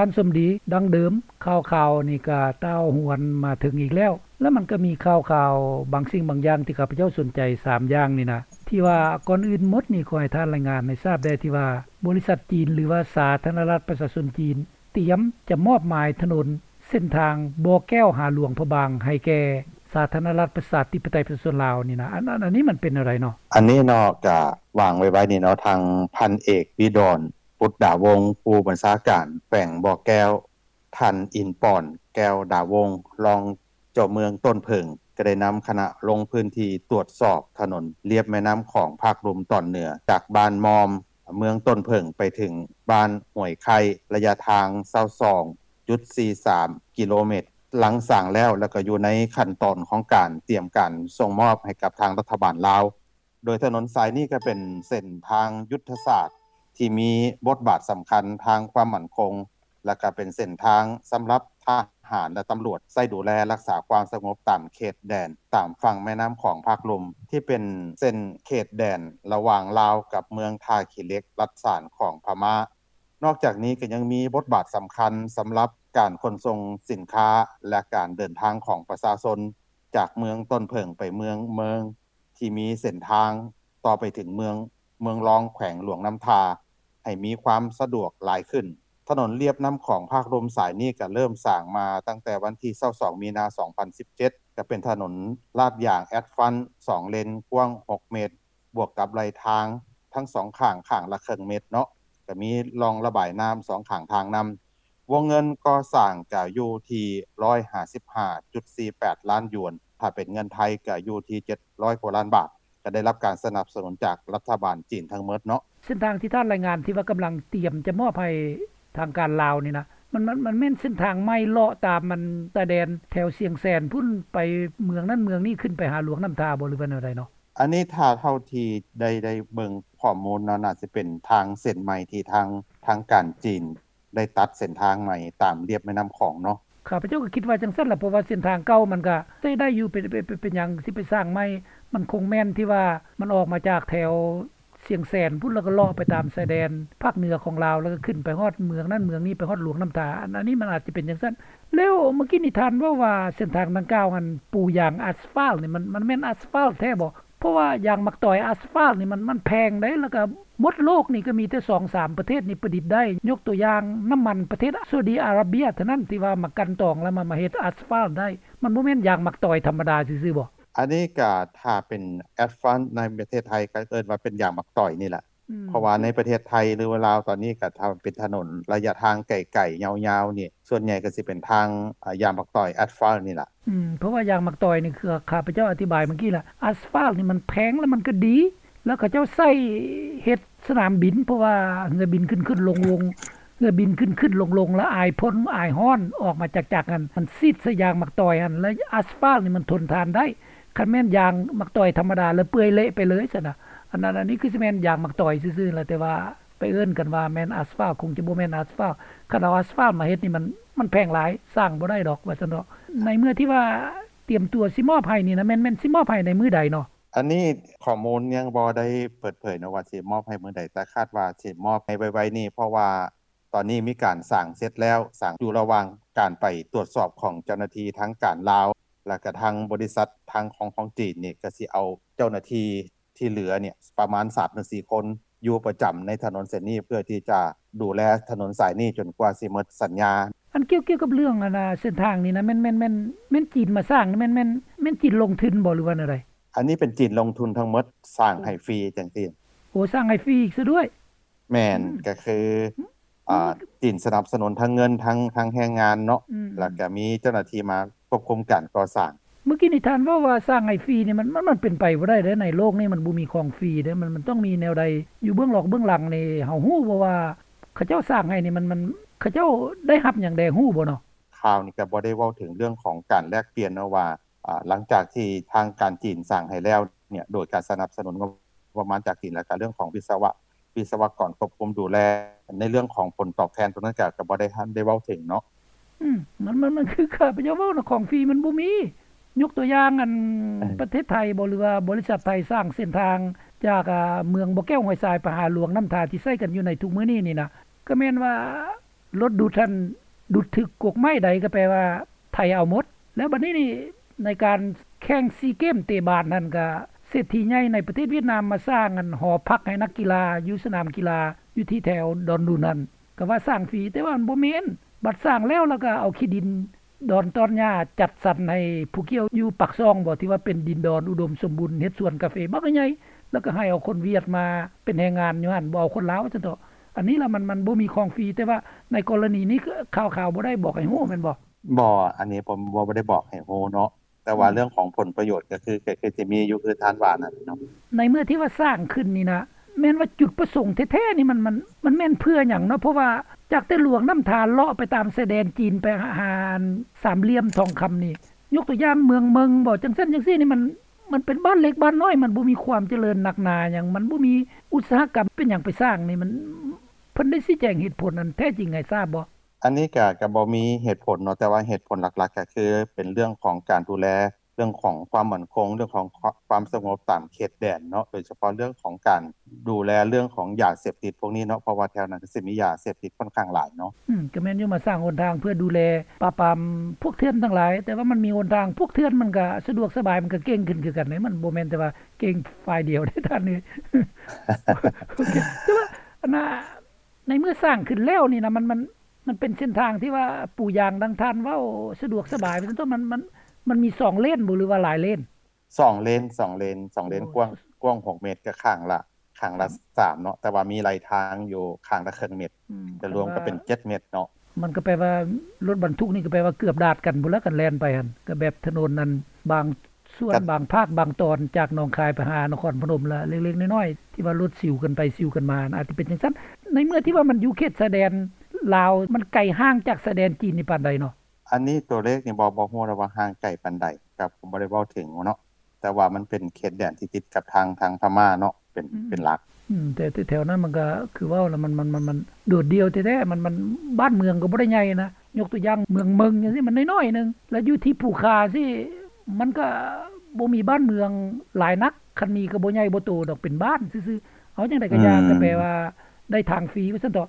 ທ່ານສົມດີ ດັ່ງເດີມ ຂ່າວໆນີ້ກໍຕ່າວຫວນມາເຖິງອີກແລ້ວ ແລະມັນກໍມີຂ່າວໆບາງສິ່ງບາງຢ່າງທີ່ຂ້າພະເຈົ້າສົນໃຈ ສາມຢ່າງນີ້ນະ ທີ່ວ່າກ່ອນອື່ນໝົດນີ້ ຂໍໃຫ້ທ່ານລາຍງານໃຫ້ຊາບແດ່ ທີ່ວ່າບໍລິສັດຈີນ ຫຼືວ່າສາທາລະນະລັດປະຊາຊົນຈີນ ຕຽມຈະມອບໝາຍຖະໜົນເສັ້ນທາງບໍ່ແກ້ວຫາຫຼວງພະບາງ ໃຫ້ແກ່ສາທາລະນະລັດປະຊາທິປະໄຕປະຊາຊົນລາວນີ້ນະ ອັນ ອັນ ອັນນີ້ມັນເປັນແນວໃດເນາະ? ອັນນີ້ເນາະ ກະວາງໄວໆນີ້ເນາະ ທາງພັນເອກ ວິດອນ ປຸດດາວົງ ຜູ້ບັນຊາການແຂວງບໍ່ແກ້ວ, ທ່ານ ອິນປອນ ແກ້ວດາວົງ ຮອງເຈົ້າເມືອງຕົ້ນເຜິ້ງ ກໍໄດ້ນຳຄະນະລົງພື້ນທີ່ຕວດສອບຖະໜົນລຽບແມ່ນ້ຳຂອງພາກລຸ່ມຕອນເໜືອ ຈາກບ້ານມ່ອມ ເມືອງຕົ້ນເຜິ້ງ ໄປເຖິງບ້ານຫ້ວຍໄຂ່ ໄລຍະທາງຊາວສອງຈຸດສີ່ສາມກິໂລແມັດ. ຫຼັງສ້າງແລ້ວ ແລ້ວກໍຢູ່ໃນຂັ້ນຕອນຂອງການຕຽມການສົ່ງມອບໃຫ້ກັບທາງລັດຖະບານລາວ. ໂດຍຖະໜົນສາຍນີ້ກໍເປັນເສັ້ນທາງຍຸດທະສາດທີ່ມີບົດບາດສຳຄັນທາງຄວາມໝັ້ນຄົງ ແລະກະເປັນເສັ້ນທາງສຳລັບທະຫານ ແລະຕຳຫຼວດໃຊ້ດູແລຮັກສາຄວາມສະຫງົບຕາມເຂດແດນ ຕາມຝັ່ງແມ່ນ້ຳຂອງພາກລຸ່ມ ທີ່ເປັນເສັ້ນເຂດແດນລະຫວ່າງລາວກັບເມືອງທ່າຂີ້ເຫຼັກ ລັດສານຂອງພະມ້າ. ນອກຈາກນີ້ກໍຍັງມີບົດບາດສຳຄັນສຳລັບການຂົນສົ່ງສິນຄ້າ ແລະການເດີນທາງຂອງປະຊາຊົນຈາກເມືອງຕົ້ນເຜິ້ງໄປເມືອງເມີງ ທີ່ມີເສັ້ນທາງຕໍ່ໄປເຖິງເມືອງ ເມືອງລອງ ແຂວງຫຼວງນ້ຳທາ ໃຫ້ມີຄວາມສະດວກຫຼາຍຂຶ້ນ. ຖະໜົນລຽບນ້ຳຂອງພາກລຸ່ມສາຍນີ້ກໍເລີ່ມສ້າງມາຕັ້ງແຕ່ວັນທີຊາວສອງມີນາສອງພັນສິບເຈັດ ກໍເປັນຖະໜົນລາດຢາງແອັດຟານສອງເລນ ກວ້າງຫົກເມດ ບວກກັບໄລ່ທາງທັງສອງຂ້າງ ຂ້າງລະເຄິ່ງເມດເນາະ ກໍມີຮ່ອງລະບາຍນ້ຳສອງຂ້າງທາງນຳ. ວົງເງິນກໍ່ສ້າງກໍຢູ່ທີ່ຮ້ອຍຫ້າສິບຫ້າຈຸດສີ່ແປດລ້ານຢວນ, ຖ້າເປັນເງິນໄທກໍຢູ່ທີ່ເຈັດຮ້ອຍກວ່າລ້ານບາດ, ກໍໄດ້ຮັບການສະໜັບສະໜູນຈາກລັດຖະບານຈີນທັງໝົດເນາະ. ເສັ້ນທາງທີ່ທ່ານລາຍງານທີ່ວ່າກຳລັງຕຽມຈະມອບໃຫ້ທາງການລາວນີ້ນະ ມັນ ມັນ ມັນແມ່ນເສັ້ນທາງໃໝ່ເລາະຕາມອັນຊາຍແດນແຖວຊຽງແສນພຸ້ນ ໄປເມືອງນັ້ນເມືອງນີ້ ຂຶ້ນໄປຫາຫຼວງນ້ຳທາບໍ່ ຫຼືວ່າແນວໃດເນາະ? ອັນນີ້ຖ້າເທົ່າທີ່ໄດ້ ໄດ້ເບິ່ງຂໍ້ມູນເນາະ ໜ້າຊິເປັນທາງເສັ້ນໃໝ່ທີ່ທາງ ທາງການຈີນ ໄດ້ຕັດເສັ້ນທາງໃໝ່ຕາມລຽບແມ່ນ້ຳຂອງເນາະ. ຂ້າພະເຈົ້າກໍຄິດວ່າຈັ່ງຊັ້ນລະ ເພາະວ່າເສັ້ນທາງເກົ່າມັນກໍໃຊ້ໄດ້ຢູ່ ເປັນ ເປັນ ເປັນ ເປັນຫຍັງຊິໄປສ້າງໃໝ່? ມັນຄົງແມ່ນທີ່ວ່າມັນອອກມາຈາກແຖວຊຽງແສນພຸ້ນ ແລ້ວກໍເລາະໄປຕາມຊາຍແດນພາກເໜືອຂອງລາວ ແລ້ວກໍຂຶ້ນໄປຮອດເມືອງນັ້ນເມືອງນີ້ ໄປຮອດຫຼວງນ້ຳທາ. ອັນ ອັນນີ້ມັນອາດຈະເປັນຈັ່ງຊັ້ນ. ແລ້ວເມື່ອກີ້ນີ້ທ່ານເວົ້າວ່າເສັ້ນທາງດັ່ງກ່າວຫັ້ນປູຢາງອາສຟາລນີ້ ມັນ ມັນແມ່ນອາສຟາລແທ້ບໍ່? ເພາະວ່າຢາງໝາກຕອຍອາສຟາລນີ້ມັນ ມັນແພງເດ້ ແລ້ວກໍໝົດໂລກນີ້ກໍມີແຕ່ສອງສາມປະເທດນີ້ປະດິດໄດ້ ຍົກຕົວຢ່າງນ້ຳມັນປະເທດຊາອຸດີອາຣາເບຍເທົ່ານັ້ນ ທີ່ວ່າມາກັ່ນຕອງແລ້ວມາ ມາເຮັດອາສຟາລໄດ້ ມັນບໍ່ແມ່ນຢາງໝາກຕອຍທຳມະດາຊື່ໆບໍ່? ອັນນີ້ກໍຖ້າເປັນອາສຟາລໃນປະເທດໄທກໍເອີ້ນວ່າເປັນຢາງໝາກຕອຍນີ້ແຫຼະ ອືມ ເພາະວ່າໃນປະເທດໄທ ຫຼືວ່າລາວຕອນນີ້ກໍຖ້າເປັນຖະໜົນໄລຍະທາງໄກໆຍາວໆນີ້ ສ່ວນໃຫຍ່ກໍຊິເປັນທາງ ອາ ຢາງໝາກຕອຍອາສຟາລນີ້ລະ. ອືມ ເພາະວ່າຢາງໝາກຕອຍນີ້ ຄືຂ້າພະເຈົ້າອະທິບາຍເມື່ອກີ້ລະ ອາສຟາລນີ້ມັນແພງ ແລ້ວມັນກໍດີ ແລ້ວເຂົາເຈົ້າໃຊ້ເຮັດສະໜາມບິນ ເພາະວ່າເຮືອບິນຂຶ້ນໆລົງໆ ເຮືອບິນຂຶ້ນໆລົງໆ ແລ້ວອາຍຝົນອາຍຮ້ອນອອກມາຈາກຈັກຫັ້ນ ມັນສີດໃສ່ຢາງໝາກຕອຍຫັ້ນ ແລ້ວອາສຟາລນີ້ມັນທົນທານໄດ້. ຄັນແມ່ນຢາງໝາກຕອຍທຳມະດາ ແລ້ວເປື່ອຍເລະໄປເລີຍຊັ້ນນະ ອັນນັ້ນ ອັນນີ້ຄືຊິແມ່ນຢາງໝາກຕອຍຊື່ໆລະ ແຕ່ວ່າໄປເອີ້ນກັນວ່າແມ່ນອາສຟາລ ຄົງຈະບໍ່ແມ່ນອາສຟາລ. ຄັນເອົາອາສຟາລມາເຮັດນີ້ ມັນ ມັນແພງຫຼາຍ ສ້າງບໍ່ໄດ້ດອກວ່າຊັ້ນເນາະ. ໃນເມື່ອທີ່ວ່າຕຽມຕົວຊິມອບໃຫ້ນີ້ນະ ແມ່ນ ແມ່ນຊິມອບໃຫ້ໃນມື້ໃດເນາະ? ອັນນີ້ຂໍ້ມູນຍັງບໍ່ໄດ້ເປີດເຜີຍເນາະວ່າຊິມອບໃຫ້ມື້ໃດ ແຕ່ຄາດວ່າຊິມອບໃຫ້ໄວໆນີ້ ເພາະວ່າ ຕອນນີ້ມີການສ້າງເສັດແລ້ວ, ສ້າງຢູ່ລະຫວ່າງການໄປຕວດສອບຂອງເຈົ້າໜ້າທີ່ທາງການລາວ ແລະກະທາງບໍລິສັດທາງຂອງ ຂອງຈີນນີ້ ກະຊິເອົາເຈົ້າໜ້າທີ່ທີ່ເຫຼືອນີ້ປະມານສາມເຖິງສີ່ຄົນ ຢູ່ປະຈຳໃນຖະໜົນເສັ້ນນີ້ ເພື່ອທີ່ຈະດູແລຖະໜົນສາຍນີ້ຈົນກວ່າຊິໝົດສັນຍາ. ອັນກ່ຽວ ກ່ຽວກັບເລື່ອງອັນນາ ເສັ້ນທາງນີ້ນະ ແມ່ນ ແມ່ນ ແມ່ນ ແມ່ນຈີນມາສ້າງ ແມ່ນ ແມ່ນ ແມ່ນຈີນລົງທຶນບໍ່ ຫຼືວ່າແນວໃດ? ອັນນີ້ເປັນຈີນລົງທຶນທັງໝົດ ສ້າງໃຫ້ຟຣີຈັ່ງຊີ້. ໂອ້ ສ້າງໃຫ້ຟຣີອີກຊະດ້ວຍ. ແມ່ນ ອືມ ກະຄື ອືມ ອາ ຈີນສະໜັບສະໜູນທັງເງິນ ທັງ ທັງແຮງງານເນາະ ອືມ ແລ້ວກະມີເຈົ້າໜ້າທີ່ມາຄວບຄຸມການກໍ່ສ້າງ. ເມື່ອກີ້ນີ້ທ່ານເວົ້າວ່າສ້າງໃຫ້ຟຣີນີ້ ມັນ ມັນ ມັນເປັນໄປບໍ່ໄດ້ເດ້ ໃນໂລກນີ້ມັນບໍ່ມີຂອງຟຣີເດ້ ມັນ ມັນຕ້ອງມີແນວໃດຢູ່ເບື້ອງຫຼອກເບື້ອງຫຼັງນີ້. ເຮົາຮູ້ບໍ່ວ່າເຂົາເຈົ້າສ້າງໃຫ້ນີ້ ມັນ ມັນ ເຂົາເຈົ້າໄດ້ຮັບຫຍັງແດ່ ຮູ້ບໍ່ເນາະ? ຂ່າວນີ້ກະບໍ່ໄດ້ເວົ້າເຖິງເລື່ອງຂອງການແລກປ່ຽນເນາະວ່າ ອາ ຫຼັງຈາກທີ່ທາງການຈີນສ້າງໃຫ້ແລ້ວເນຍ ໂດຍການສະໜັບສະໜູນງົບປະມານຈາກຈີນ ແລ້ວກະເລື່ອງຂອງວິສະວະ ວິສະວະກອນຄວບຄຸມດູແລ ໃນເລື່ອງຂອງຜົນຕອບແທນໂຕນັ້ນກະ ກະບໍ່ໄດ້ ທັນໄດ້ເວົ້າເຖິງເນາະ. ອືມ ມັນ ມັນ ມັນຄືຂ້າພະເຈົ້າເວົ້ານະ ຂອງຟຣີມັນບໍ່ມີ. ຍົກຕົວຢ່າງ ອັນ ເອີ ປະເທດໄທບໍ ຫຼືວ່າບໍລິສັດໄທສ້າງເສັ້ນທາງຈາກ ອາ ເມືອງບໍ່ແກ້ວຫ້ວຍຊາຍໄປຫາຫຼວງນ້ຳທາ ທີ່ໃຊ້ກັນຢູ່ໃນທຸກມື້ນີ້ນີ້ນະ ກະແມ່ນວ່າ ລົດດູດຫັ້ນດູດຖືກກົກໄມ້ໃດ ກໍແປວ່າໄຖເອົາໝົດ. ແລ້ວບັດນີ້ນີ້ ໃນການແຂ່ງຊີເກມເຕະບານຫັ້ນ ກໍເສດຖີໃຫຍ່ໃນປະເທດຫວຽດນາມມາສ້າງອັນຫໍພັກໃຫ້ນັກກິລາຢູ່ສະໜາມກິລາ ຢູ່ທີ່ແຖວດອນດຸນຫັ້ນ ກໍວ່າສ້າງຟຣີ ແຕ່ວ່າມັນບໍ່ແມ່ນ. ບັດສ້າງແລ້ວ ແລ້ວກໍເອົາຂີ້ດິນ ດອນຕອນຫຍ້າຈັດສັນໃຫ້ຜູ້ກ່ຽວຢູ່ປາກຊ່ອງບໍ ທີ່ວ່າເປັນດິນດອນອຸດົມສົມບູນ ເຮັດສວນກາເຟບັກໃຫຍ່ ແລ້ວກໍໃຫ້ເອົາຄົນຫວຽດມາເປັນແຮງງານຢູ່ຫັ້ນ ບໍ່ເອົາຄົນລາວວ່າຊັ້ນເຖາະ. ອັນນີ້ລະມັນ ມັນບໍ່ມີຂອງຟຣີ ແຕ່ວ່າໃນກໍລະນີນີ້ ຂ່າວໆບໍ່ໄດ້ບອກໃຫ້ຮູ້ແມ່ນບໍ່? ບໍ່ ອັນນີ້ບໍ່ ບໍ່ ບໍ່ໄດ້ບອກໃຫ້ຮູ້ເນາະ ແຕ່ວ່າ ອືມ ເລື່ອງຂອງຜົນປະໂຫຍດກໍຄື ກໍຄືຊິມີຢູ່ ຄືທ່ານວ່ານັ້ນເນາະ. ໃນເມື່ອທີ່ວ່າສ້າງຂຶ້ນນີ້ນະ ແມ່ນວ່າຈຸດປະສົງແທ້ໆນີ້ ມັນ ມັນ ມັນແມ່ນເພື່ອຫຍັງເນາະ? ເພາະວ່າຈາກແຕ່ຫຼວງນ້ຳທາເລາະໄປຕາມຊາຍແດນຈີນ ໄປຫາອັນສາມຫຼ່ຽມທອງຄຳນີ້ ຍົກຕົວຢ່າງເມືອງເມິງບໍ ຈັ່ງຊັ້ນຈັ່ງຊີ້ນີ້ ມັນ ມັນເປັນບ້ານເລັກບ້ານນ້ອຍ ມັນບໍ່ມີຄວາມຈະເລີນໜັກໜາຫຍັງ ມັນບໍ່ມີອຸດສາຫະກຳ ເປັນຫຍັງໄປສ້າງນີ້ ມັນ ເພິ່ນໄດ້ຊີ້ແຈງເຫດຜົນອັນແທ້ຈິງໃຫ້ຊາບບໍ່? ອັນນີ້ກະ ກະບໍ່ມີເຫດຜົນເນາະ ແຕ່ວ່າເຫດຜົນຫຼັກໆ ກະຄືເປັນເລື່ອງຂອງການດູແລ ເລື່ອງຂອງຄວາມໝັ້ນຄົງ ເລື່ອງຂອງຄວາມສະຫງົບຕາມເຂດແດນເນາະ ໂດຍສະເພາະເລື່ອງຂອງການດູແລເລື່ອງຂອງຢາເສບຕິດພວກນີ້ເນາະ ເພາະວ່າແຖວນັ້ນກໍຊິມີຢາເສບຕິດຂ້ອນຂ້າງຫຼາຍເນາະ. ອືມ ກໍແມ່ນຢູ່ ມາສ້າງຫົນທາງເພື່ອດູແລປາບປາມພວກເຖື່ອນທັງຫຼາຍ ແຕ່ວ່າມັນມີຫົນທາງ ພວກເຖື່ອນມັນກໍສະດວກສະບາຍ ມັນກໍເກັ່ງຂຶ້ນຄືກັນເດ້ ມັນບໍ່ແມ່ນແຕ່ວ່າເກັ່ງຝ່າຍດຽວເດ້ທ່ານເອີຍ. ໂອເຄ ແຕ່ວ່າອັນນ່າ ໃນເມື່ອສ້າງຂຶ້ນແລ້ວນີ້ນະ ມັນ ມັນ ມັນເປັນເສັ້ນທາງທີ່ວ່າປູຢາງ ດັ່ງທ່ານເວົ້າ ສະດວກສະບາຍວ່າຊັ້ນເຖາະ ມັນ ມັນ ມັນມີສອງເລນບໍ ຫຼືວ່າຫຼາຍເລນ? ສອງເລນ ສອງເລນ ສອງເລນ ໂອ້ ກວ້າງ ກວ້າງຫົກເມດ ກໍຂ້າງລະ ຂ້າງລະ ອືມ ສາມເນາະ ແຕ່ວ່າມີໄລ່ທາງຢູ່ຂ້າງລະເຄິ່ງເມດ ອືມ ກໍລວມກໍເປັນເຈັດເມດເນາະ. ມັນກໍແປວ່າລົດບັນທຸກນີ້ກໍແປວ່າເກືອບດາດກັນພຸ້ນລະ ຄັນແລ່ນໄປຫັ້ນ ກໍແບບຖະໜົນນັ້ນ ບາງສ່ວນ ກໍ ບາງພາກບາງຕອນ ຈາກໜອງຄາຍໄປຫານະຄອນພະນົມລະເລັກໆນ້ອຍໆ ທີ່ວ່າລົດຊິວກັນໄປຊິວກັນມາ ອາດຈະເປັນຈັ່ງຊັ້ນ. ໃນເມື່ອທີ່ວ່າມັນຢູ່ເຂດຊາຍແດນລາວ ມັນໄກຫ່າງຈາກຊາຍແດນຈີນນີ້ປານໃດເນາະ? ອັນນີ້ຕົວເລກນີ້ບໍ່ ບໍ່ຮູ້ແລ້ວວ່າຫ່າງໄກປານໃດ ກໍບໍ່ໄດ້ເວົ້າເຖິງເນາະ ແຕ່ວ່າມັນເປັນເຂດແດນທີ່ຕິດກັບທາງ ທາງພະມ້າເນາະ ເປັນ ອືມ ເປັນຫຼັກ. ອືມ ແຕ່ ແຕ່ແຖວນັ້ນມັນກໍຄືເວົ້າລະ ມັນ ມັນ ມັນ ມັນໂດດດ່ຽວແທ້ໆ ມັນ ມັນ ບ້ານເມືອງກໍບໍ່ໄດ້ໃຫຍ່ນະ ຍົກຕົວຢ່າງເມືອງເມິງຈັ່ງຊີ້ ມັນນ້ອຍໆໜຶ່ງ ແລ້ວຢູ່ທີ່ພູຄາຊີ້ ມັນກໍບໍ່ມີບ້ານເມືອງຫຼາຍນັກ ຄັນມີກໍບໍ່ໃຫຍ່ບໍ່ໂຕດອກ ເປັນບ້ານຊື່ໆ. ເອົາຈັ່ງໃດກໍຢ່າ ອືມ ກໍແປວ່າໄດ້ທາງຟຣີວ່າຊັ້ນເຖາະ.